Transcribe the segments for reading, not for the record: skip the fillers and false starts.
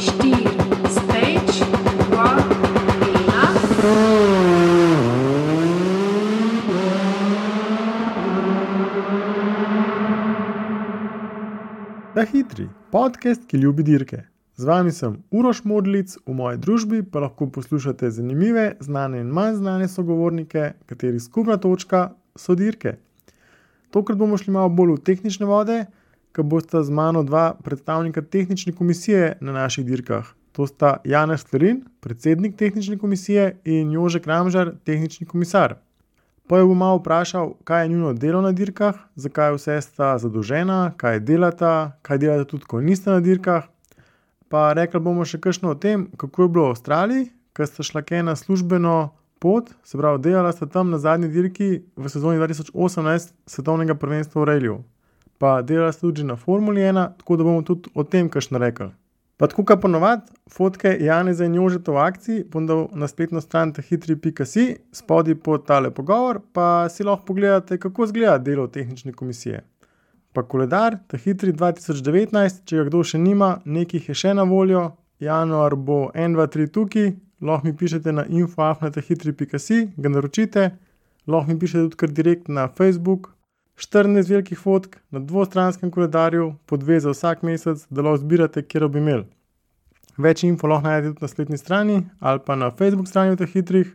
4, stage, 2, 1. Ta hitri, podcast, ki ljubi dirke. Z vami sem Uroš Modlic, v moji družbi pa lahko poslušate zanimive, znane in manj znane sogovornike, katerih skupna točka so dirke. Tokrat bomo šli malo bolj v tehnične vode, ker bosta z mano dva predstavnika tehnične komisije na naših dirkah. To sta Janez Slerin, predsednik tehnične komisije, in Jože Kramžar, tehnični komisar. Pa jo bom malo vprašal, kaj je njuno delo na dirkah, zakaj vse sta zadolžena, kaj delata tudi, ko niste na dirkah. Pa rekli bomo še kakšno o tem, kako je bilo v Avstraliji, ker sta šla na službeno pot, se pravi, delala sta tam na zadnji dirki v sezoni 2018 svetovnega prvenstva v Rallyu. Pa delala sta tudi na Formuli 1, tako da bomo tudi o tem kakšno rekli. Pa tako kot ponovadi, fotke Janeza in Jožeta v akciji bom dal na spletno stran tahitri.si, spodaj pod tale pogovor, pa si lahko pogledate, kako izgleda delo tehnične komisije. Pa koledar Tahitri 2019, če ga kdo še nima, nekih je še na voljo, januar bo 1, 2, 3 tukaj, lahko mi pišete na info@tahitri.si, ga naročite, lahko mi pišete tudi kar direkt na Facebook, 14 velikih fotk na dvostranskem koledarju, po 2 za vsak mesec, da lahko zbirate, kjer bi imeli. Več info lahko najdete tudi na spletni strani ali pa na Facebook strani v Tahitrih.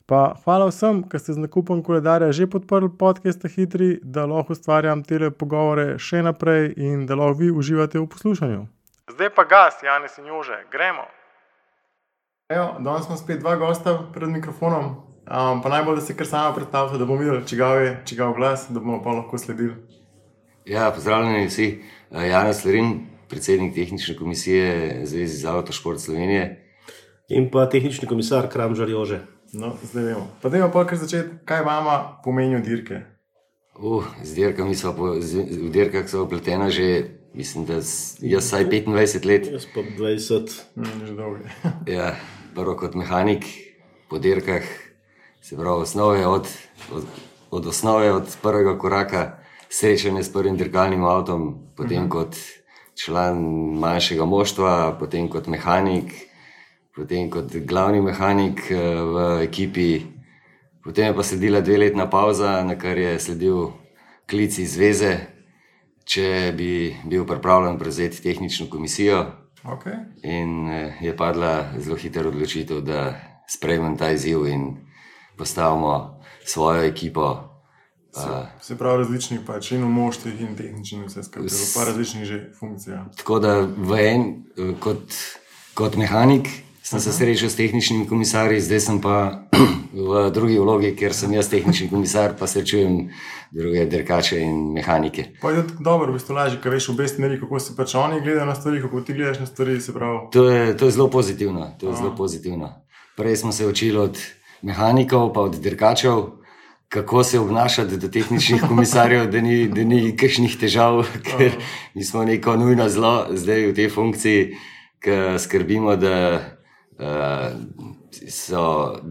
Pa hvala vsem, ki ste z nakupom koledarja že podprli podcast Tahitri, da lahko ustvarjam tele pogovore še naprej in da lahko vi uživate v poslušanju. Zdaj pa gas, Janez in Jože, gremo! Evo, danes smo spet dva gosta pred mikrofonom, pa najbolj, da se kar sama predstavite, da bomo videli, čigav glas, da bomo pa lahko sledili. Ja, pozdravljeni vsi. Janez Slerin, predsednik tehnične komisije Zveze za avtošport Slovenije. In pa tehnični komisar Kramžar Jože. No, zdaj vemo. Pa dajmo pa kar začeti, kaj vama pomenijo dirke? Z dirkami v dirkah so vpletena že, mislim, da jaz vsaj 25 let. Jaz pa 20. Že dolgo. Ja, prvo kot mehanik po dirkah, se pravi od osnove, od prvega koraka, srečanje s prvim dirkalnim avtom, potem kot član manjšega moštva, potem kot mehanik, potem kot glavni mehanik v ekipi, potem je pa sledila 2-letna pauza, na kar je sledil klic iz zveze, če bi bil pripravljen prevzeti tehnično komisijo. Okay. In je padla zelo hitra odločitev, da sprejmem ta izziv in postavimo svojo ekipo. Se pravi različnih pač in v moštvih in tehničnih vse skupaj, pa različnih že funkcijah. Tako da kot mehanik sem se srečal s tehničnimi komisarji, zdaj sem pa v drugi vlogi, ker sem jaz tehnični komisar, pa srečujem druge dirkače in mehanike. Pa je dobro, v bistvu lažje, ker veš v obe smeri, kako se pač oni gledajo na stvari, kako ti gledaš na stvari, se pravi. To je zelo pozitivno, zelo pozitivno. Prej smo se učili od mehanikov pa od dirkačev, kako se obnašati do tehničnih komisarjev, da ni kakšnih težav, ker mi smo neko nujno zlo zdaj v tej funkciji, ker skrbimo, da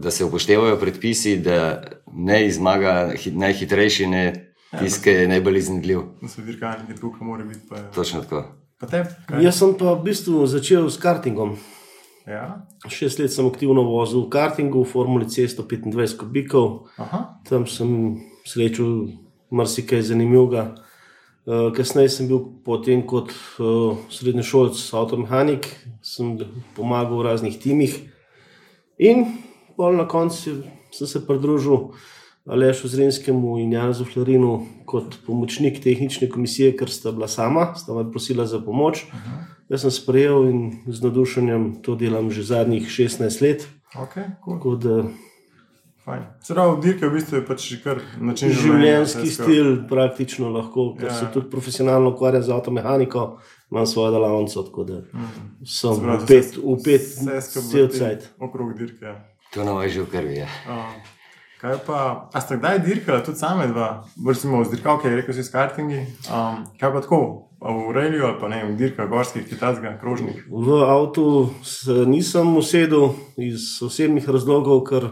se upoštevajo predpisi, da ne zmaga najhitrejši, ne tisti, ki je najbolj iznajdljiv. Da so dirkalniki tako, kot mora biti. Pa je. Točno tako. Pa te? Jaz sem pa v bistvu začel s kartingom. Ja. 6 let sem aktivno vozil v kartingu, v Formuli C 125 kubikov. Aha. Tam sem srečal marsikaj zanimivega. Kasneje sem bil potem kot srednješolec avtomehanik, sem pomagal v raznih timih in bolj na koncu sem se pridružil Alešu Zrinskemu in Janezu Slerinu kot pomočnik tehnične komisije, ker sta bila sta me prosila za pomoč. Jaz sem sprejel in z navdušenjem to delam že zadnjih 16 let. Ok, cool. Tako da fajn. Se pravi, dirke v bistvu je pač kar način življenjski stil praktično lahko, ker se tudi profesionalno ukvarjam z avtomehaniko, imam svojo delavnico, tako da sem upet cel cajt. Okrog dirke. To nam je že v krvi, ja. Kaj pa, a ste kdaj dirkala tudi same dva? Recimo z dirkavke, rekel si s kartingi. Kaj pa tako? V Rallyu ali pa ne, v dirkah gorskih, kitajskih, krožnih? V avtu nisem usedel iz osebnih razlogov, ker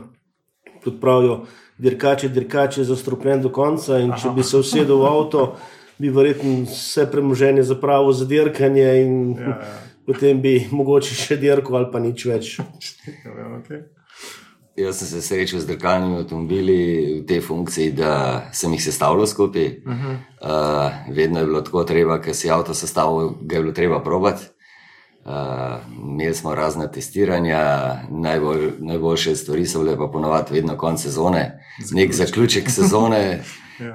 kot pravijo, dirkač je zastrupljen do konca in če bi se usedel v avto, bi verjetno vse premoženje zapravil za dirkanje in potem bi mogoče še dirko ali pa nič več. Okay. Jaz sem se srečal z dirkalnimi avtomobili v tej funkciji, da sem jih sestavljal skupaj. Vedno je bilo tako treba, ker si avto sestavil, ga je bilo treba probati. Imeli smo razna testiranja, najboljše stvari so bile pa ponovadi vedno konc sezone. Nek zaključek sezone,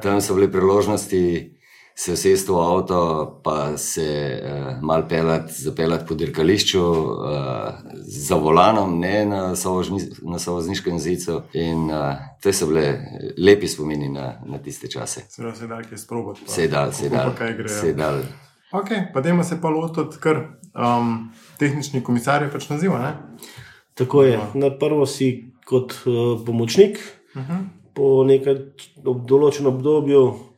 tam so bile priložnosti se usesti v avto, pa se malo zapeljati po dirkališču za volanom, ne na sovozniškem zicu. In to so bile lepi spomini na tiste čase. Se da kaj sprobati. Se da. Ok, pa dajmo se pa lotiti kar tehnični komisar je pač naziva, ne? Tako je. Na prvo si kot pomočnik, po nekaj določenem obdobju,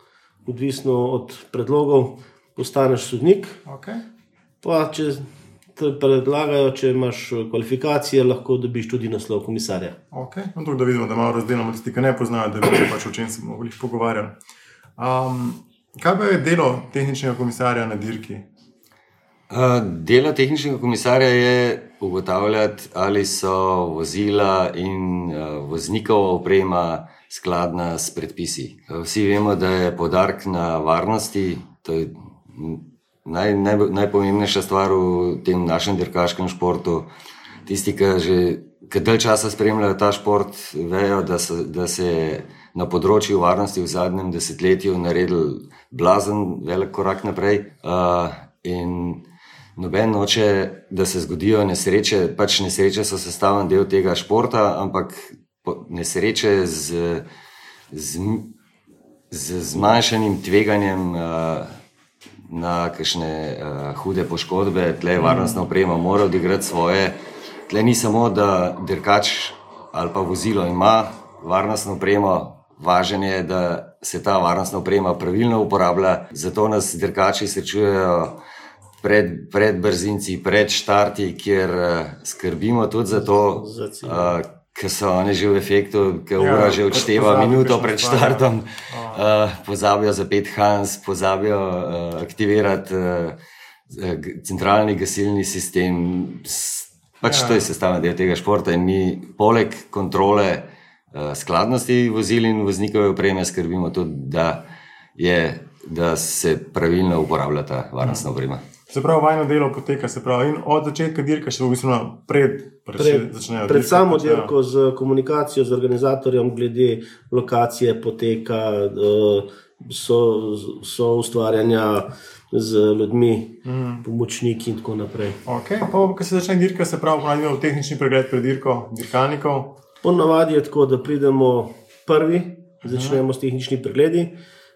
odvisno od predlogov, postaneš sodnik. Okay. Pa če te predlagajo, če imaš kvalifikacije, lahko dobiš tudi naslov komisarja. Ok, no tako da vidimo, da malo razdelamo tisti, ki ne poznajo, da bi pač o čem se mogli pogovarjali. Kaj pa je delo tehničnega komisarja na dirki? Delo tehničnega komisarja je ugotavljati, ali so vozila in voznikova oprema skladna s predpisi. Vsi vemo, da je poudarek na varnosti, to je najpomembnejša stvar v tem našem dirkaškem športu. Tisti, ki dalj časa spremljajo ta šport, vejo, da se je na področju varnosti v zadnjem desetletju naredil blazen velik korak naprej. In noben noče, da se zgodijo nesreče, pač nesreče so sestavljen del tega športa, ampak nesreče z zmanjšanim tveganjem na kakšne hude poškodbe. Tle varnostna oprema mora odigrati svoje. Tle ni samo, da dirkač ali pa vozilo ima varnostno opremo, važno je, da se ta varnostna oprema pravilno uporablja. Zato nas dirkači srečujejo pred brzinci, pred štarti, kjer skrbimo tudi za to, ker so oni že v efektu, ker ura že odšteva minuto pred štartom, pozabijo zapeti Hans, pozabijo aktivirati centralni gasilni sistem. Pač to je sestavni del tega športa in mi poleg kontrole skladnosti vozil in voznikove opreme skrbimo tudi, da se pravilno uporablja ta varnostna oprema. Se pravi, vajno delo poteka, se pravi, in od začetka dirka še v bistvu pred samo dirko z komunikacijo z organizatorjem glede lokacije poteka, so ustvarjanja z ljudmi, pomočniki in tako naprej. Ok, pa ko se začne dirka, se pravi, ponavljamo tehnični pregled pred dirko dirkalnikov. Ponavadi je tako, da pridemo prvi, začnemo s tehničnimi pregledi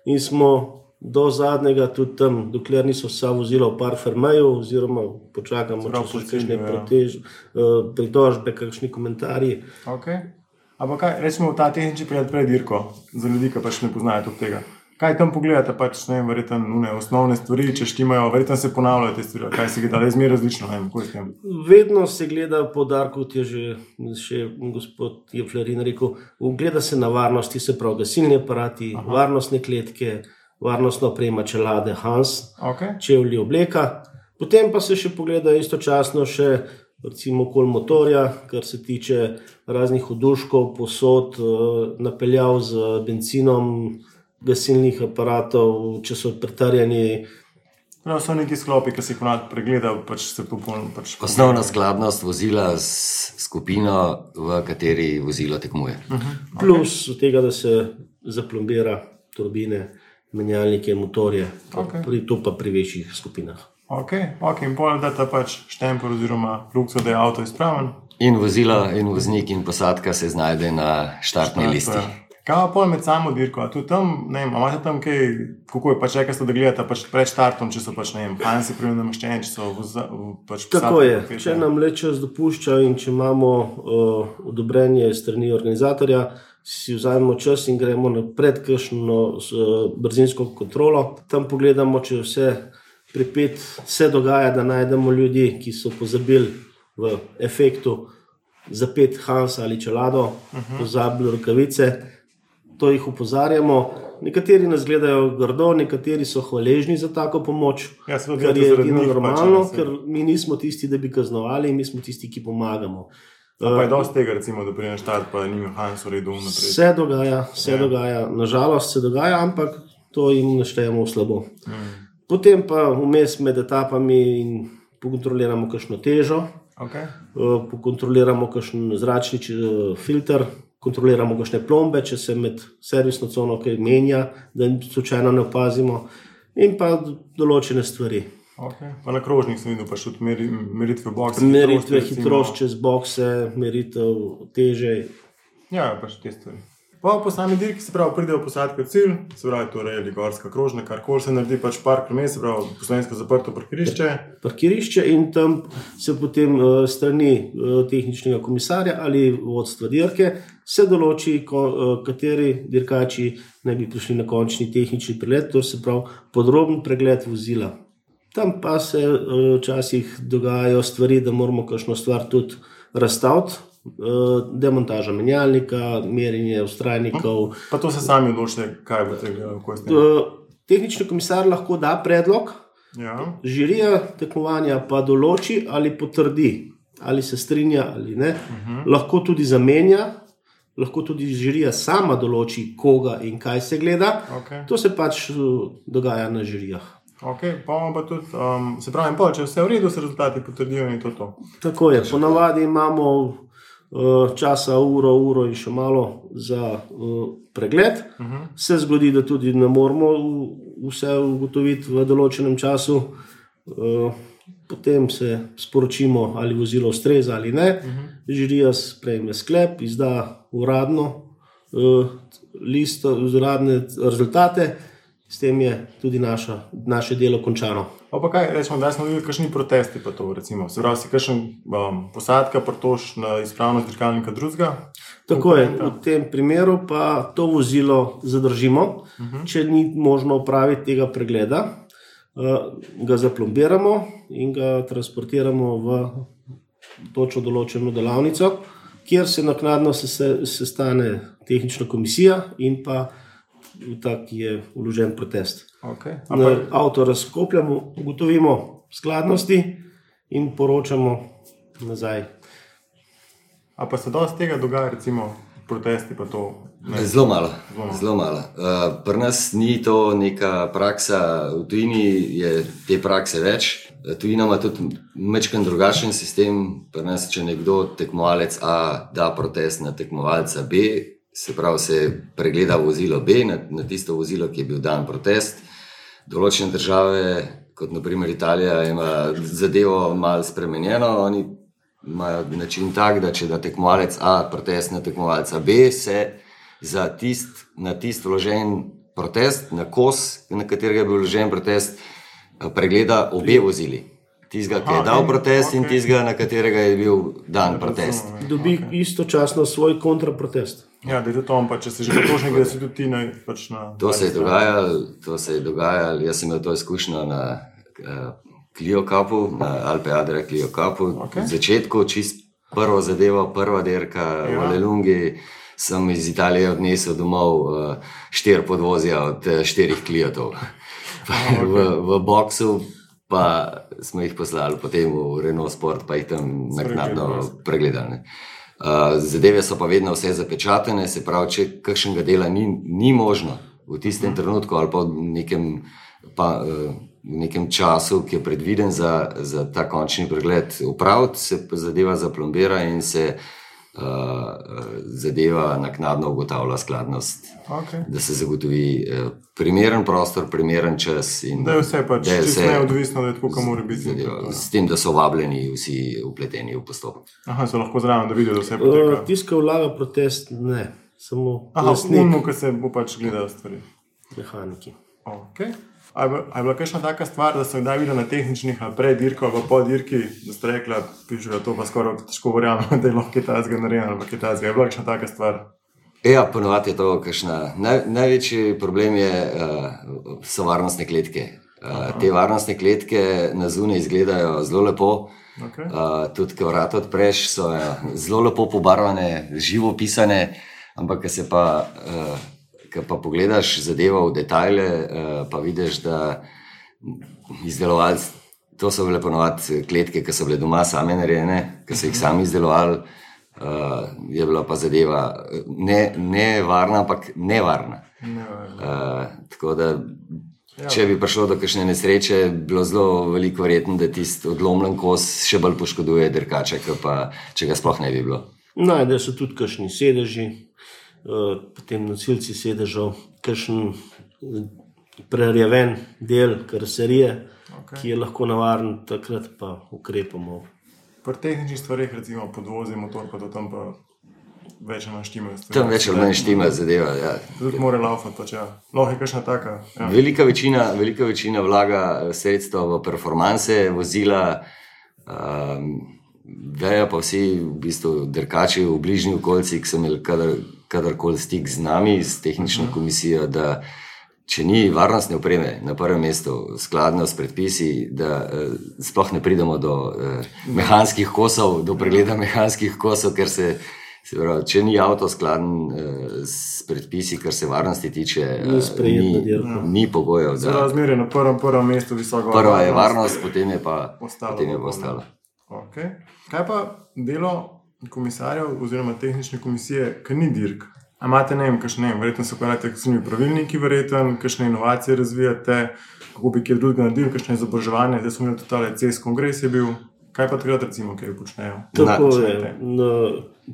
in smo do zadnjega tudi tam, dokler niso vsa vozila v parfermeju, oziroma počakamo, če so kakšne pritožbe, kakšni komentarji. Ok. Ampak kaj, recimo ta tehnični pregled pred dirko, za ljudi, ki pač ne poznajo tudi tega. Kaj tam pogledate, pač ne vem, verjetno osnovne stvari, če štimajo, verjetno se ponavljajo te stvari, kaj se gleda, le zmer različno, ne vem, kako je s tem. Vedno se gleda poudarek, kot je že gospod Jeflerin rekel, gleda se na varnosti, se pravi gasilni aparati, varnostne kletke, varnostna oprema, čelade, Hans, čevlji, obleka. Potem pa se še pogleda istočasno še recimo okoli motorja, kar se tiče raznih oduškov, posod, napeljav z bencinom, gasilnih aparatov, če so pretrjeni. No, so neki sklopi, ki se jih ponad pregleda, pač se popolno... Osnovna skladnost vozila s skupino, v kateri vozilo tekmuje. Plus tega, da se zaplombira turbine, menjalnike, motorje, to pa pri večjih skupinah. Ok, in pol data pač štempel oziroma lukso, da je avto izpraven. In vozilo, in voznik, in posadka se znajde na štartni listi. Kaj pa pol med samo dirko? A tudi tam, ne vem, a imate tam kaj, kako je pač rekli, da gledate pač pred štartom, če so pač, ne vem, Hansi pravilno namaščeni, če so pač posadke? Tako je, če nam le čas dopušča in če imamo odobrenje strani organizatorja, si vzamemo čas in gremo na predkržno brzinsko kontrolo. Tam pogledamo, če vse pripet, se dogaja, da najdemo ljudi, ki so pozabili v efektu zapeti Hans ali čelado, pozabili rokavice. to jih opozarjamo. Nekateri nas gledajo grdo, nekateri so hvaležni za tako pomoč, Ja, seveda, kar je zaradi edino njih normalno, pač, ker mi nismo tisti, da bi kaznovali, mi smo tisti, ki pomagamo. Pa je dosti tega, recimo, da pride na štart, pa ni mehansko redu naprej. Se dogaja, nažalost se dogaja, ampak to jim naštejemo v slabo. Potem pa vmes med etapami pokontroliramo kakšno težo, Okay. pokontroliramo kakšen zračni filter, kontroliramo kakšne plombe, če se med servisno cono kaj menja, da slučajno ne opazimo, in pa določene stvari. Okay. Pa na krožnik sem videl, pa še meritve bokse. Meritve hitrost čez bokse, meritev teže. Ja, pa še te stvari. Po sami dirki, se pravi, pridejo posadke v cilj, se pravi, torej ali gorska krožna, karkoli se naredi, pač park promet, se pravi, poslovensko zaprto parkirišče. In tam se potem strani tehničnega komisarja ali vodstva dirke se določi, kateri dirkači naj bi prišli na končni tehnični pregled, to se pravi podroben pregled vozila. Tam pa se včasih dogajajo stvari, da moramo kakšno stvar tudi razstaviti. Demontaža menjalnika, merjenje vztrajnikov. Pa to se sami odločite, kaj boste gledali? Tehnični komisar lahko da predlog, žirija tekmovanja pa določi ali potrdi, ali se strinja ali ne. Lahko tudi zamenja, lahko tudi žirija sama določi, koga in kaj se gleda. To se pač dogaja na žirijah. Ok, pa imamo pa tudi, se pravi, če vse v redu, se rezultati potrdijo in to. Tako je, ponavadi imamo časa uro in še malo za pregled. Se zgodi, da tudi ne moramo vse ugotoviti v določenem času. Potem se sporočimo, ali vozilo ustreza ali ne. Žirija sprejme sklep, izda uradno listo, uradne rezultate. S tem je tudi naše delo končano. Pa kaj, rečemo, da smo videli kakšni protesti pa to, recimo. Se pravi, si kakšen posadka pritož na izpravnost dirkalnika drugega? Tako je, v tem primeru pa to vozilo zadržimo, če ni možno opraviti tega pregleda, ga zaplombiramo in ga transportiramo v točno določeno delavnico, kjer se naknadno sestane tehnična komisija in pa tak je vložen protest. Okay. Avto razkopljamo, ugotovimo skladnosti in poročamo nazaj. A pa se dosti tega dogaja, recimo protesti pa to? Zelo malo. Pri nas ni to neka praksa, v tujini je te prakse več. Tujina ima tudi majčkeno drugačen sistem. Pri nas, če nekdo tekmovalec A da protest na tekmovalca B, se pravi, se pregleda vozilo B na tisto vozilo, ki je bil dan protest. Določene države, kot naprimer Italija, ima zadevo malo spremenjeno. Oni imajo način tak, da če da tekmovalec A protest na tekmovalca B, se na tist vložen protest, na kos, na katerega je bil vložen protest, pregleda obe vozili. Tistega, ki je dal protest in tistega, na katerega je bil dan protest. Dobi istočasno svoj kontraprotest. Ja, da je to on, pa če se že potrošnik, da si tudi ti pač na... To se je dogajalo, jaz sem imel to izkušnjo na Clio Cupu, na Alpe Adria Clio Cupu. V začetku, čist prvo zadevo, prva dirka v Lelungi, sem iz Italije odnesel domov 4 podvozja od 4 Cliotov. V boksu pa smo jih poslali potem v Renault Sport, pa jih tam naknadno pregledali. Zadeve so pa vedno vse zapečatene, se pravi, če kakšnega dela ni možno v tistem trenutku ali pa v nekem času, ki je predviden za ta končni pregled upraviti, se zadeva zaplombira in se zadeva naknadno ugotavlja skladnost, da se zagotovi primeren prostor, primeren čas. Da je vse pač čisto neodvisno, da je tako, kam mora biti. S tem, da so vabljeni vsi vpleteni v postopek. So lahko zraven, da vidijo, da vse poteka. Tiska vlaga protest, ne. Samo vnimo, ko se bo pač gledal stvari. Mehaniki. A je bila kakšna taka stvar, da so kdaj videli na tehničnih pred dirko ali po dirki, da ste rekla, pišu, da to pa skoraj težko verjamem, da je lahko kitajskega narejeno ali pa kitajskega. Je bila kakšna taka stvar? Ja, ponovadi je to kakšna. Največji problem so varnostne kletke. Te varnostne kletke na zunaj izgledajo zelo lepo. Tudi, ko vrata odpreš, so zelo lepo pobarvane, živo pisane, ampak ko se pa ko pa pogledaš zadevo v detajle, pa vidiš, da izdelovalci, to so bile ponovadi kletke, ki so bile doma same narejene, ki so jih sami izdelovali, je bila pa zadeva ne varna, ampak nevarna. Tako da, če bi prišlo do kakšne nesreče, bilo zelo veliko verjetno, da tisti odlomljen kos še bolj poškoduje dirkača, pa če ga sploh ne bi bilo. Najdejo se tudi kakšni sedeži, potem nosilci sedežev, kakšen prerjaven del karoserije, ki je lahko navaren, takrat pa ukrepamo. Pri tehničnih stvareh, recimo podvozi, motor, pa to tam pa več ali manj štima. Tam več ali manj štima zadeva, ja. Tudi mora laufati, pač ja. Lahko je kakšna taka. Ja. Velika večina vlaga sredstva v performanse, vozila, vejo pa vsi v bistvu dirkači v bližnji okolici, ki so imeli kadarkoli stik z nami, s tehnično komisijo, da če ni varnostne opreme na prvem mestu skladno s predpisi, da sploh ne pridemo do mehanskih kosov, do pregleda mehanskih kosov, ker se pravi, če ni avto skladen s predpisi, kar se varnosti tiče, ni pogojev. Razmerje na prvem mestu visoko varnost. Prva je varnost, potem je pa ostalo. Okay. Kaj pa delo komisarjev oziroma tehnične komisije, ki ni dirk? A imate, verjetno se ukvarjate s temi pravilniki, kakšne inovacije razvijate, kako bi kje drugega naredili, kakšne izobraževanje, zdaj smo imeli totale CES kongres je bil. Kaj pa takrat recimo, kaj počnejo? Tako je.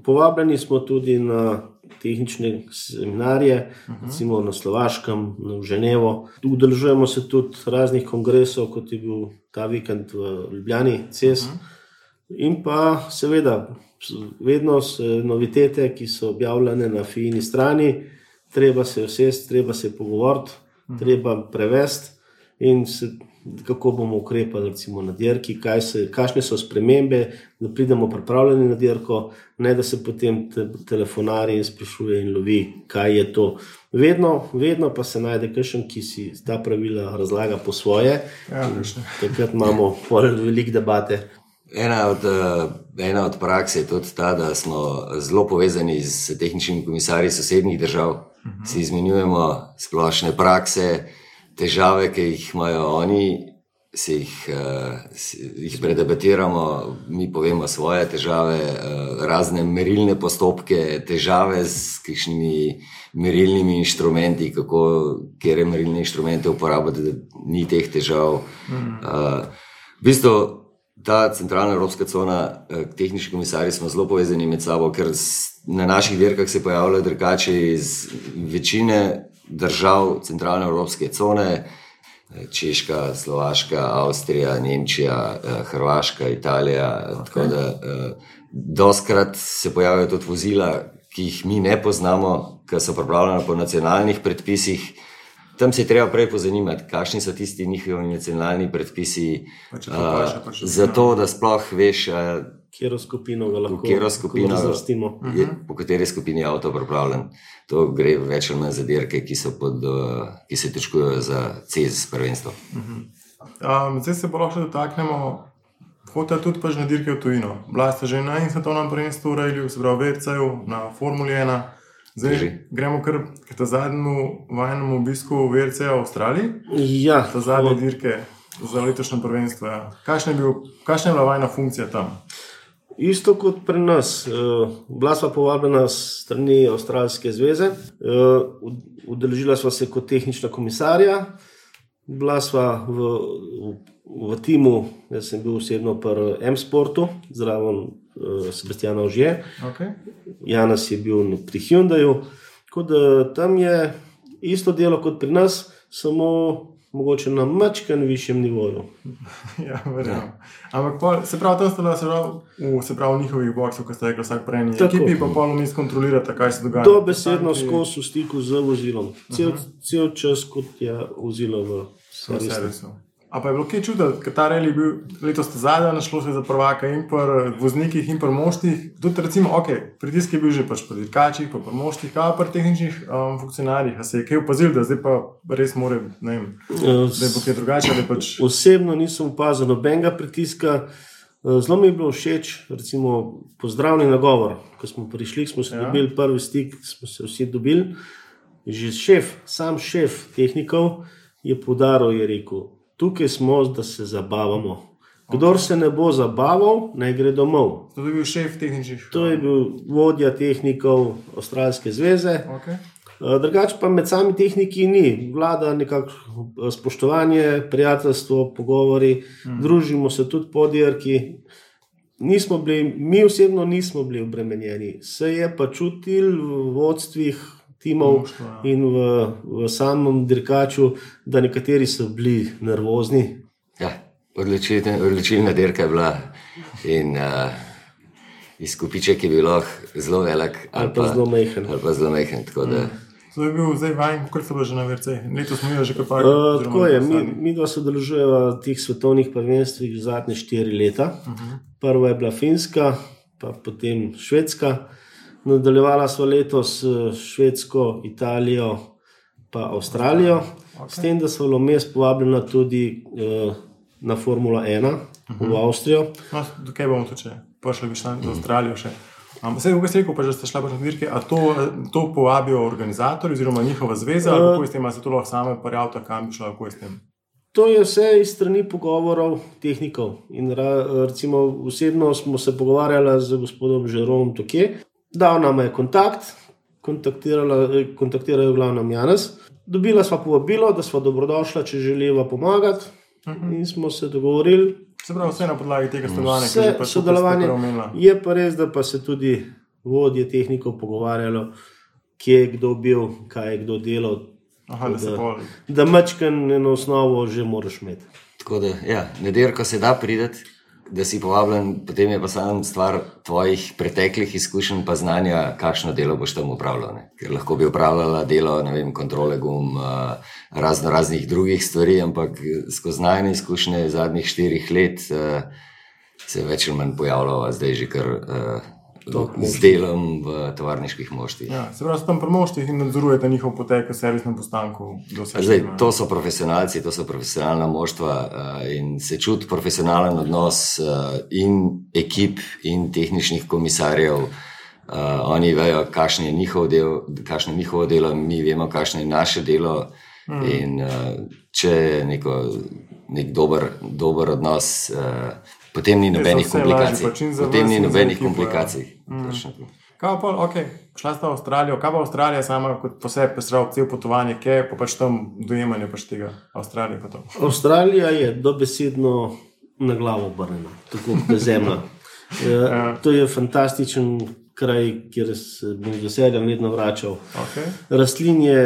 Povabljeni smo tudi na tehnične seminarje, recimo na Slovaškem, v Ženevo. Udeležujemo se tudi raznih kongresov, kot je bil ta vikend v Ljubljani, CES. In pa seveda, vedno so novitete, ki so objavljene na FINI strani, treba se usesti, treba se pogovoriti, treba prevesti in kako bomo ukrepali recimo na dirki, kakšne so spremembe, da pridemo pripravljeni na dirko, ne da se potem telefonari in sprašuje in lovi, kaj je to. Vedno pa se najde kakšen, ki si ta pravila razlaga po svoje. Takrat imamo veliko debate. Ena od praks je tudi ta, da smo zelo povezani s tehničnimi komisarji sosednjih držav. Si izmenjujemo splošne prakse, težave, ki jih imajo oni, jih predebatiramo, mi povemo svoje težave, razne merilne postopke, težave s kakšnimi merilnimi inštrumenti, katere merilne inštrumente uporabljati, da ni teh težav. V bistvu ta centralna evropska cona, tehnični komisarji smo zelo povezani med sabo, ker na naših dirkah se pojavljajo dirkači iz večine držav centralne evropske cone, Češka, Slovaška, Avstrija, Nemčija, Hrvaška, Italija, tako da dostikrat se pojavljajo tudi vozila, ki jih mi ne poznamo, ki so pripravljena po nacionalnih predpisih. Tam se je treba prej pozanimati, kakšni so tisti njihovi nacionalni predpisi, zato da sploh veš, katero skupino ga lahko razvrstimo. Po kateri skupini je avto pripravljen. To gre več ali manj za dirke, ki se točkujejo za CES prvenstvo. Zdaj se bo lahko dotaknemo, hotela tudi pač na dirke v tujino. Bila ste že na svetovnem prvenstvu v Rallyu, se pravi v WRC-ju, na Formuli 1. Zdaj gremo kar k ta zadnjemu vajnemu obisku WRC-ja v Avstraliji. Ja. Ta zadnje dirke za letošnje prvenstvo. Ja. Kakšna je bila vajna funkcija tam? Isto kot pri nas. Bila sva povabljena s strani Avstralske zveze. Udeležila sva se kot tehnična komisarja. Bila sva v timu, jaz sem bil osebno pri M-Sportu, zraven Sebastiana Ožije. Janez je bil pri Hyundaiu. Tako da tam je isto delo kot pri nas, samo mogoče na mačken višjem nivoju. Ja, verjamem. Ampak se pravi, tam ste v njihovih boksov, ko ste rekli vsak prej eni ekipi, pa pol vmes kontrolirate, kaj se dogaja. Dobesedno skozi v stiku z vozilom. Cel čas, kot je vozilo v servisu. A pa je bilo kaj čuditi, ker ta rally je bil letos zadnja, našlo se za prvaka in pri voznikih in pri moštih. Tudi recimo, pritisk je bil že pač pri dirkačih, pa pri moštih, kaj pri tehničnih funkcionarjih. A se je kaj opazil, da zdaj pa res more, ne vem, da bo kaj drugače? Osebno nisem opazil nobenega pritiska. Zelo mi je bilo všeč, recimo, pozdravni nagovor. Ko smo prišli, smo se dobili prvi stik, smo se vsi dobili. že sam šef tehnikov je poudaril, je rekel, tukaj smo, da se zabavamo. Kdor se ne bo zabaval, naj gre domov. To je bil šef tehničnih. To je bil vodja tehnikov Avstralske zveze. Okay. Drugače pa med sami tehniki ni. Vlada nekako spoštovanje, prijateljstvo, pogovori, družimo se tudi po dirki. Mi osebno nismo bili obremenjeni. Se je pa čutil v vodstvih timov in v samem dirkaču, da nekateri so bili nervozni. Ja, odločilna dirka je bila in izkupiček je bil zelo velik ali pa zelo majhen. To je bil zdaj vajen, koliko so bili že na VRC? Letos smo imeli že kar par. Tako je, mi dva sodelujeva v teh svetovnih prvenstvih zadnje 4 leta. Prva je bila Finska, pa potem Švedska. Nadaljevala sva letos Švedsko, Italijo pa Avstralijo. S tem, da sva vmes povabljena tudi na Formula 1 v Avstrijo. No, kaj bomo tu če? Prišli bi šla v Avstralijo še. Vse, kako ste rekel, pa že ste šla na dirke, a to povabijo organizatorji oziroma njihova zveza, ali kako je s tem, ali se to lahko same prijavite, kam bi šla, kako je s tem? To je vse iz strani pogovorov tehnikov. In recimo osebno smo se pogovarjali z gospodom Žerom Toke, dal nam je kontakt, kontaktirajo glavnem Janez. Dobila sva povabilo, da sva dobrodošla, če želiva pomagati in smo se dogovorili. Se pravi, vse na podlagi tega sodelovanja, ki je pa sodelovanje. Je pa res, da pa se tudi vodje tehnikov pogovarjalo, kje je kdo bil, kaj je kdo delal. Da mačkan eno osnovo že moraš imeti. Tako da, ja, na dirko se da prideti, da si povabljen, potem je pa samo stvar tvojih preteklih izkušenj pa znanja, kakšno delo boš tam upravljal. Ker lahko bi upravljala delo, ne vem, kontrole gum, raznih drugih stvari, ampak skozi najne izkušnje zadnjih 4 let se več ali manj pojavljava zdaj že kar z delom v tovarniških moštvih. Ja, se pravi, so tam pri moštvih in nadzorujete njihov potek v servisnem postanku. Zdaj, to so profesionalci, to so profesionalna moštva in se čuti profesionalen odnos in ekip in tehničnih komisarjev. Oni vejo, kakšno je njihovo delo, mi vemo, kakšno je naše delo in če je nek dober odnos, potem ni nobenih komplikacij. Kaj pa, šla sta v Avstralijo, kaj pa Avstralija sama kot posebej pesrava cel potovanje, kje je pa pač tam dojemanje pač tega Avstralije pa to? Avstralija je dobesedno na glavo obrnjena, tako kot zemlja. To je fantastičen kraj, kjer se bom z veseljem vedno vračal. Rastlinje,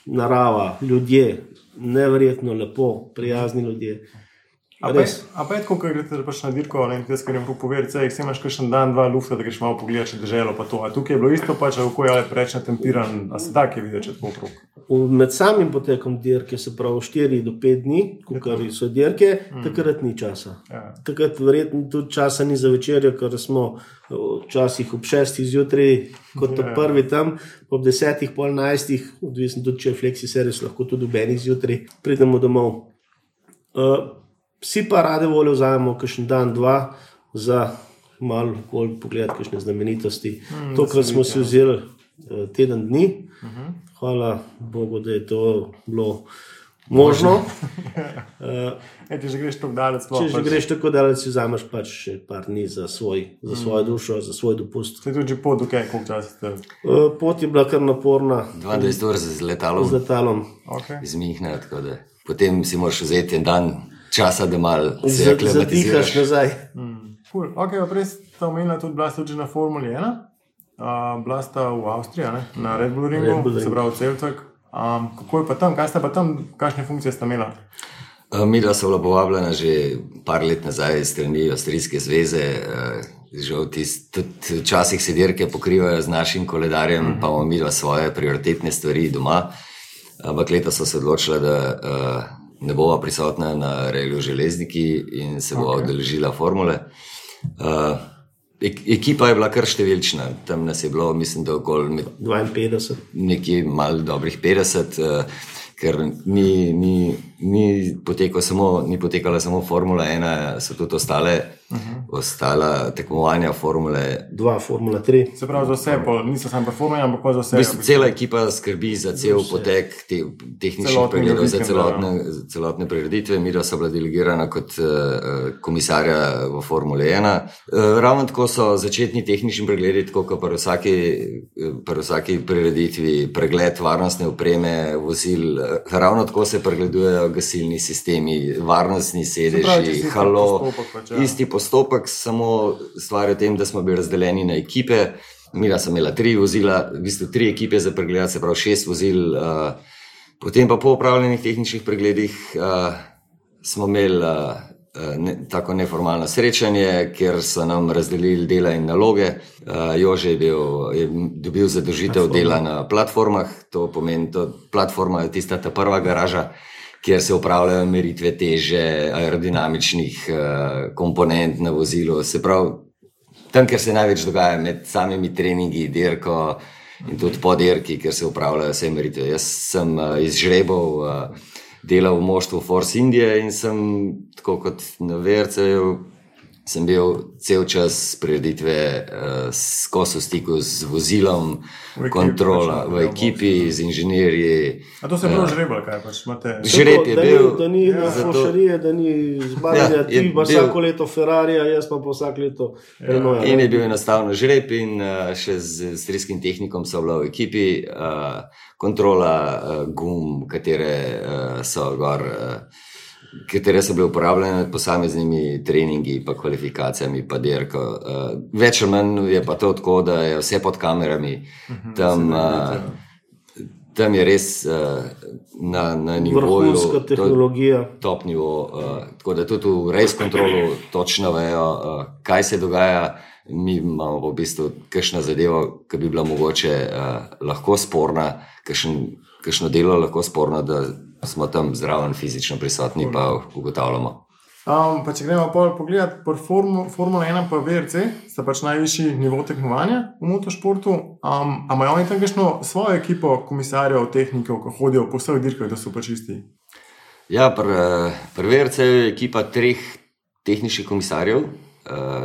narava, ljudje, neverjetno lepo, prijazni ljudje. A pa je tako, ko greste pač na dirko, ne vem, kar jim povedati, se imaš kakšen dan, 2 lufta, da greš malo pogledati, če deželo pa to. A tukaj je bilo isto pač, kako je preč natempiran, a se da kje videti, če tako okrog? Med samim potekom dirke, se pravi 4 do 5 dni, kar so dirke, takrat ni časa. Takrat verjetno tudi časa ni za večerjo, ker smo včasih ob 6 zjutraj, kot ob prvi tam, ob 10, pol 11, odvisno tudi, če je flexi servis, lahko tudi ob 1 zjutraj, pridemo domov. Vsi pa rade volje vzajemo kakšen dan, 2 za malo bolj pogledati kakšne znamenitosti. Tokrat smo si vzeli teden dni. Hvala Bogu, da je to bilo možno. Če že greš tako daleč, si vzameš pač še par dni za svojo dušo, za svoj dopust. Ste tudi že pot, koliko časa ste? Pot je bila kar naporna. 22 ur z letalom. Iz Münchna, tako da potem si moraš vzeti en dan časa, da malo se aklimatiziraš. Zadihaš nazaj. Prej sta omenila tudi, bila sta tudi na Formuli 1, bila sta v Avstriji, na Red Bull Ringu, se pravi Celtek. Kako je pa tam, kaj sta pa tam, kakšne funkcije sta imela? Midva so bila povabljena že par let nazaj iz strani Avstrijske zveze, žal tudi včasih se dirke pokrivajo z našim koledarjem, pa imamo midva svoje prioritetne stvari doma, ampak leta so se odločila, da ne bova prisotna na Reliju Železniki in se bova udeležila formule. Ekipa je bila kar številčna, tam nas je bilo, mislim, da okoli 52. Nekje malo dobrih 50, ker ni ni potekala samo Formula 1, so tudi ostala tekmovanja Formule 2, Formula 3. Se pravi, za vse, niso samo Formula 1, ampak pa za vse. V bistvu cela ekipa skrbi za cel potek tehničnih pregledov, za celotne prireditve. Midva so bila delegirana kot komisarja v Formule 1. Ravno tako so začetni tehnični pregledi, tako kot pri vsaki prireditvi, pregled varnostne opreme vozil, ravno tako se pregledujejo gasilni sistemi, varnostni sedeži, isti postopek, samo stvar je v tem, da smo bili razdeljeni na ekipe. Midva sem imela 3 vozila, v bistvu 3 ekipe za pregled, se pravi 6 vozil. Potem pa po opravljenih tehničnih pregledih smo imeli tako neformalno srečanje, kjer so nam razdelili dela in naloge. Jože je dobil zadolžitev dela na platformah, to pomeni, platforma je tista ta prva garaža, kjer se upravljajo meritve teže, aerodinamičnih komponent na vozilu. Se pravi, tam, kjer se največ dogaja med samimi treningi, dirko in tudi po dirki, kjer se upravljajo vse meritve. Jaz sem iz žrebov delal v moštvu Force Indije in sem, tako kot na VRC-ju, sem bil cel čas prireditve skozi v stiku z vozilom, kontrola v ekipi, z inženirji. A to se je bilo žreba, kaj pač imate? Žreb je bil. Da ni fošarije, da ni zbavljanja, ti pa vsako leto Ferrarija, jaz pa vsak leto Renault. In je bil enostavno žreb in še z avstrijskim tehnikom so bila v ekipi, kontrola gum, katere so bile uporabljene med posameznimi treningi, pa kvalifikacijami, pa dirko. Več ali manj je pa to tako, da je vse pod kamerami. Tam je res na nivoju vrhunska tehnologija, top nivo, tako da tudi v race kontrolu točno vejo, kaj se dogaja. Mi imamo v bistvu kakšna zadeva, ki bi bila mogoče lahko sporna, kakšno delo lahko sporno, da smo tam zraven fizično prisotni, pa ugotavljamo. Pa če gremo pogledati po Formula 1 pa VRC, sta pač najvišji nivo tekmovanja v motošportu. A imajo oni tam kakšno svojo ekipo komisarjev, tehnikov, ki hodijo po vseh dirkah, da so pač isti? Ja, pri VRC je ekipa 3 tehničnih komisarjev,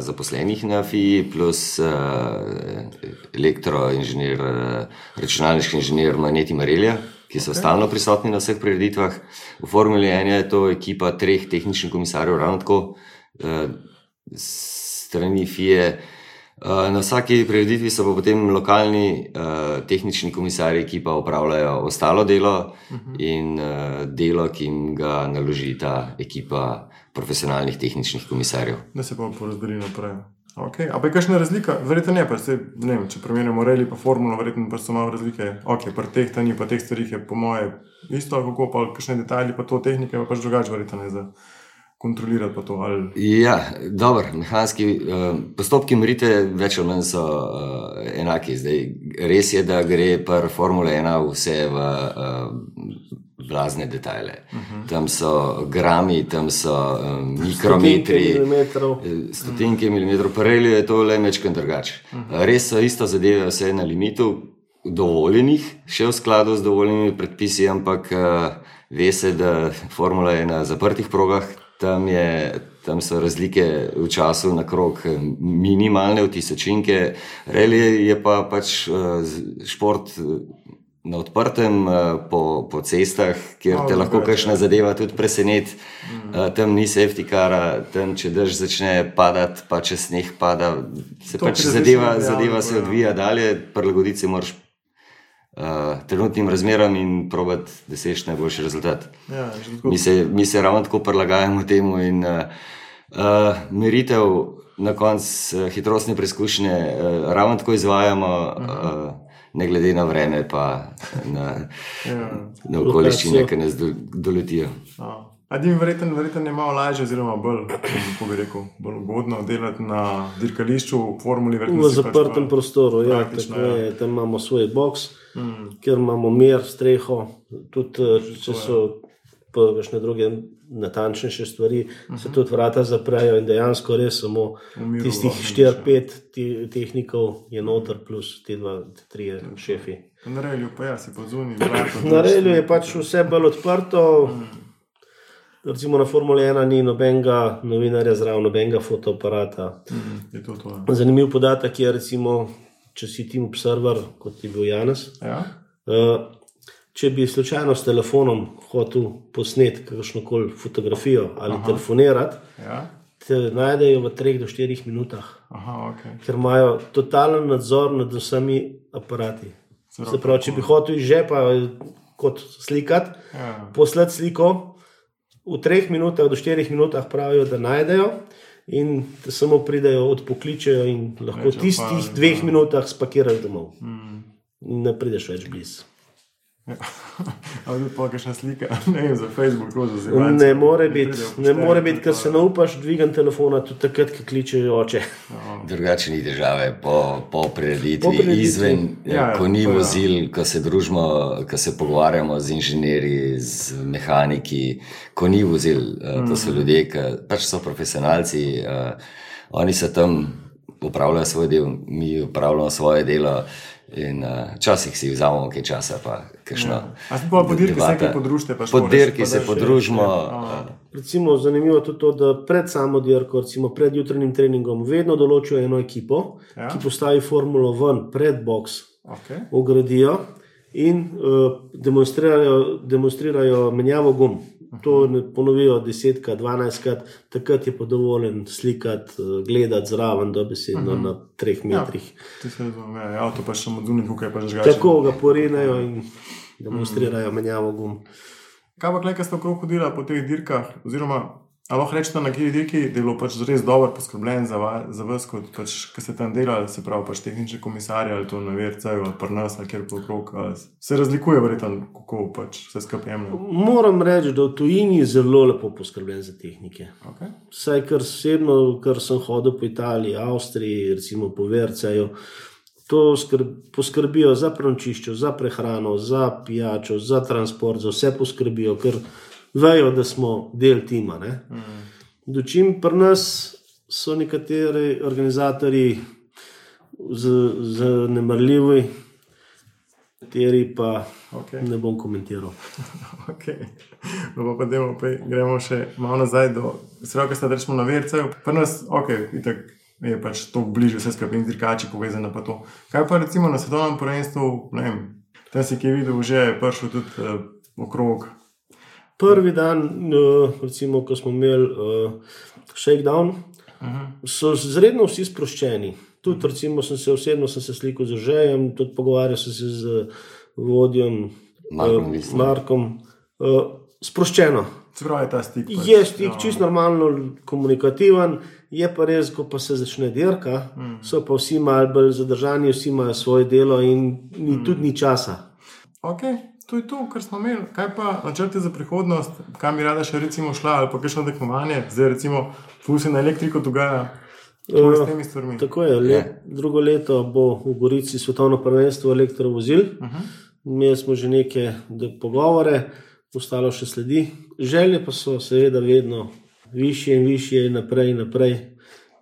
zaposlenih na FII, plus elektroinženir, računalniški inženir Maneti Marelja, ki so stalno prisotni na vseh prireditvah. V Formuli 1 je to ekipa 3 tehničnih komisarjev, ravno tako strani FIE. Na vsaki prireditvi so pa potem lokalni tehnični komisarji, ki pa opravljajo ostalo delo in delo, ki jim ga naloži ta ekipa profesionalnih tehničnih komisarjev. Da se pa porazdeli naprej. Okay. A pa je kakšna razlika? Verjetno ne, pa se, ne vem, če primerjamo rally pa formulo, verjetno pa so malo razlike. Ok, pri tehtanju pa teh stvarih je po moje isto, kako pa kakšne detajli pa to tehnike pa pač drugače verjetno ne za kontrolirati pa to. Ali... Ja, dobro, mehanski postopki meritve več ali manj so enaki. Zdaj, res je, da gre pri Formule 1 vse v blazne detajle. Tam so grami, tam so mikrometri, stotinke milimetrov, pa rally je to le mečken drugače. Res so isto zadeve vse na limitu dovoljenih, še v skladu z dovoljenimi predpisi, ampak ve se, da Formula je na zaprtih progah, tam so razlike v času na krog minimalne, v tisočinke. Rally je pa pač šport na odprtem, po cestah, kjer te lahko kakšna zadeva tudi preseneti. Tam ni safety cara, tam če dež začne padati, pa če sneh pada, se pač zadeva se odvija dalje, prilagoditi se moraš trenutnim razmeram in probati, da seš najboljši rezultat. Ja, mi se ravno tako prilagajamo temu in meritev na koncu hitrostne preizkušnje ravno tako izvajamo, ne glede na vreme pa na okoliščine, ki nas doletijo. A dim verjetno je malo lažje oziroma bolj, kako bi rekel, bolj ugodno delati na dirkališču v formuli. V zaprtem prostoru, ja, tako je, tam imamo svoj boks, kjer imamo mir, streho, tudi če so pa kakšne druge natančnejše stvari, se tudi vrata zaprejo in dejansko res samo tistih 4-5 tehnikov je noter plus ti 2-3 šefi. Na relju pa ja, si pa zunaj. Na relju je pač vse bolj odprto, recimo na Formuli 1 ni nobenega novinarja zraven, nobenega fotoaparata. Je to. Zanimiv podatek je, recimo, če si Team Observer, kot je bil Janez, Ja. če bi slučajno s telefonom hotel posneti kakšnokoli fotografijo ali telefonirati, Ja. te najdejo v 3 do 4 minutah, Aha, ok. ker imajo totalen nadzor nad vsemi aparati. Se pravi, če bi hotel iz žepa kot slikati, poslati sliko, v 3 minutah do 4 minutah pravijo, da najdejo in te samo pridejo, odpokličejo in lahko v tistih 2 minutah spakiraš domov. In ne prideš več blizu. Ali tudi pa kakšna slika, ne vem, za Facebook, za zelo. Ne more biti, ker se ne upaš dvigati telefona tudi takrat, ko kličejo oče. Drugače ni države po prireditvi, izven, ko ni vozil, ko se družimo, ko se pogovarjamo z inženirji, z mehaniki, ko ni vozil, to so ljudje, ki pač so profesionalci, oni se tam upravljajo svoj del, mi upravljamo svoje delo. In včasih si vzamemo kaj časa, pa kakšno. A si pa po dirki se nekaj podružite? Po dirki se podružimo. Recimo, zanimivo je tudi to, da pred samo dirko, recimo pred jutranjim treningom, vedno določijo eno ekipo, ki postavi formulo ven pred boks, ugradijo in demonstrirajo menjavo gum. To ponovijo 10-krat, 12-krat, takrat je pa dovoljen slikati, gledati zraven dobesedno na 3 metrih. Ti se razumije, avto pa še samo zunaj, kako je pa žgače. Tako ga porenejo in demonstrirajo menjavo gum. Kaj pa kaj ste okrog hodila po teh dirkah, oziroma ali lahko rečete na kjer dirki, da je bilo pač res dobro poskrbljen za vas, kot pač, ki ste tam delali, se pravi pač tehnični komisarji ali to na VRC-ju ali pri nas ali kjer okrog, se razlikuje verjetno, kako pač vse skupaj jemlje? Moram reči, da v tujini je zelo lepo poskrbljen za tehnike. Vsaj kar osebno, kar sem hodil po Italiji, Avstriji, recimo po VRC-ju, to poskrbijo za prenočišče, za prehrano, za pijačo, za transport, za vse poskrbijo, ker vejo, da smo del tima. Dočim pri nas so nekateri organizatorji zanemarljivi, kateri pa ne bom komentiral. No pa gremo še malo nazaj do sredo, ki ste rečemo na VRC-ju. Pri nas, itak je pač to bližje vse skupaj in dirkači povezane pa to. Kaj pa recimo na svetovnem prvenstvu, ne vem, tam si ki je videl, že je prišel tudi okrog. Prvi dan, recimo, ko smo imeli shakedown, so zredno vsi sproščeni. Tudi, recimo, osebno sem se slikal z Žejem, tudi pogovarjal sem se z vodjem Markom. Sproščeno. Se pravi, ta stik. Je stik čist normalno komunikativen, je pa res, ko pa se začne dirka, so pa vsi malo bolj zadržani, vsi imajo svoje delo in tudi ni časa. To je to, kar smo imeli. Kaj pa načrte za prihodnost, kam bi rada še recimo šla ali pa kakšno tekmovanje, zdaj recimo ful se na elektriko dogaja, kako je s temi stvarmi? Tako je, drugo leto bo v Gorici svetovno prvenstvo elektrovozil, imeli smo že neke pogovore, ostalo še sledi. Želje pa so seveda vedno višje in višje, naprej in naprej,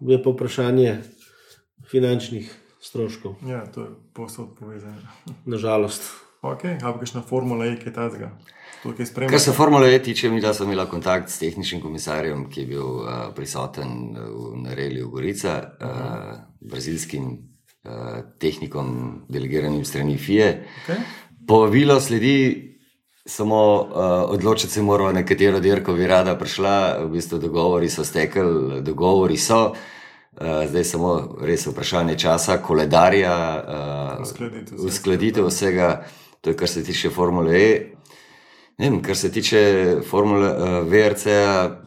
je pa vprašanje finančnih stroškov. Ja, to je povsod povezano. Nažalost. Ali pa kakšna Formula E, kaj tazga? Kar se Formule E tiče, mi da sem imela kontakt s tehničnim komisarjem, ki je bil prisoten na reliju Gorica, brazilskim tehnikom, delegiranim strani FIA. Povabilo sledi, samo odločiti se moramo, na katero dirko bi rada prišla, v bistvu dogovori so stekli, dogovori so, zdaj samo res vprašanje časa, koledarja, uskladitev vsega. To je, kar se tiče Formule E. Ne vem, kar se tiče Formule VRC-ja,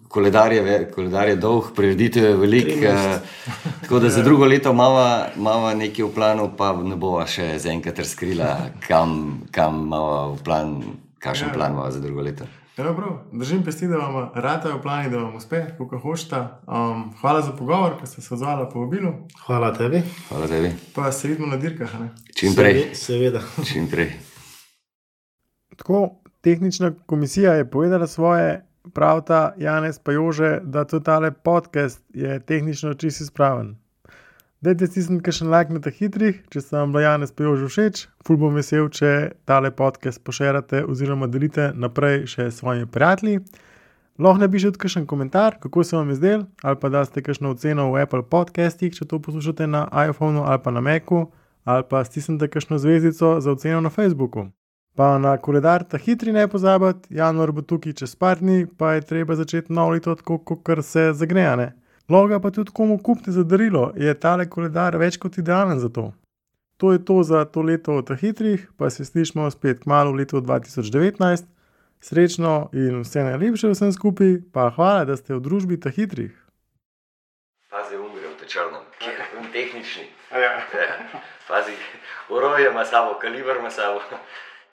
koledar je dolg, prireditev je velik, tako da za drugo leto imava nekaj v planu, pa ne bova še zaenkrat razkrila, kam imava v plan, kakšen plan imava za drugo leto. Držim pesti, da vam ratajo plani, da vam uspe, kako hočete. Hvala za pogovor, ker ste se odzvali po vabilu. Hvala tebi. Hvala tebi. Pa se vidimo na dirkah, ne? Čim prej. Seveda. Čim prej. Tako, tehnična komisija je povedala svoje, pravta Janez pa Jože, da tudi tale podcast je tehnično čisto izpraven. Dajte stisniti kakšen like na teh hitrih, če se vam Janez pa Jože všeč. Ful bom vesel, če tale podcast pošerate oziroma delite naprej še s svojimi prijatelji. Lahko napišete kakšen komentar, kako se vam je zdel, ali pa daste kakšno oceno v Apple podcastih, če to poslušate na iPhonu ali pa na Macu, ali pa stisnite kakšno zvezdico za oceno na Facebooku. Pa na koledar ta hitri ne pozabiti, januar bo tukaj čez par dni, pa je treba začeti novo leto tako, kot se zagnejane. Lahko pa tudi komu kupite za darilo, je tale koledar več kot idealen za to. To je to za to leto ta hitrih, pa se slišimo spet kmalu v letu 2019. Srečno in vse najlepše vsem skupaj, pa hvala, da ste v družbi ta hitrih. Pazi, umre v te črnem, kjer je tehnični. Ja. Pazi, oroje ima sabo, kaliber ima sabo.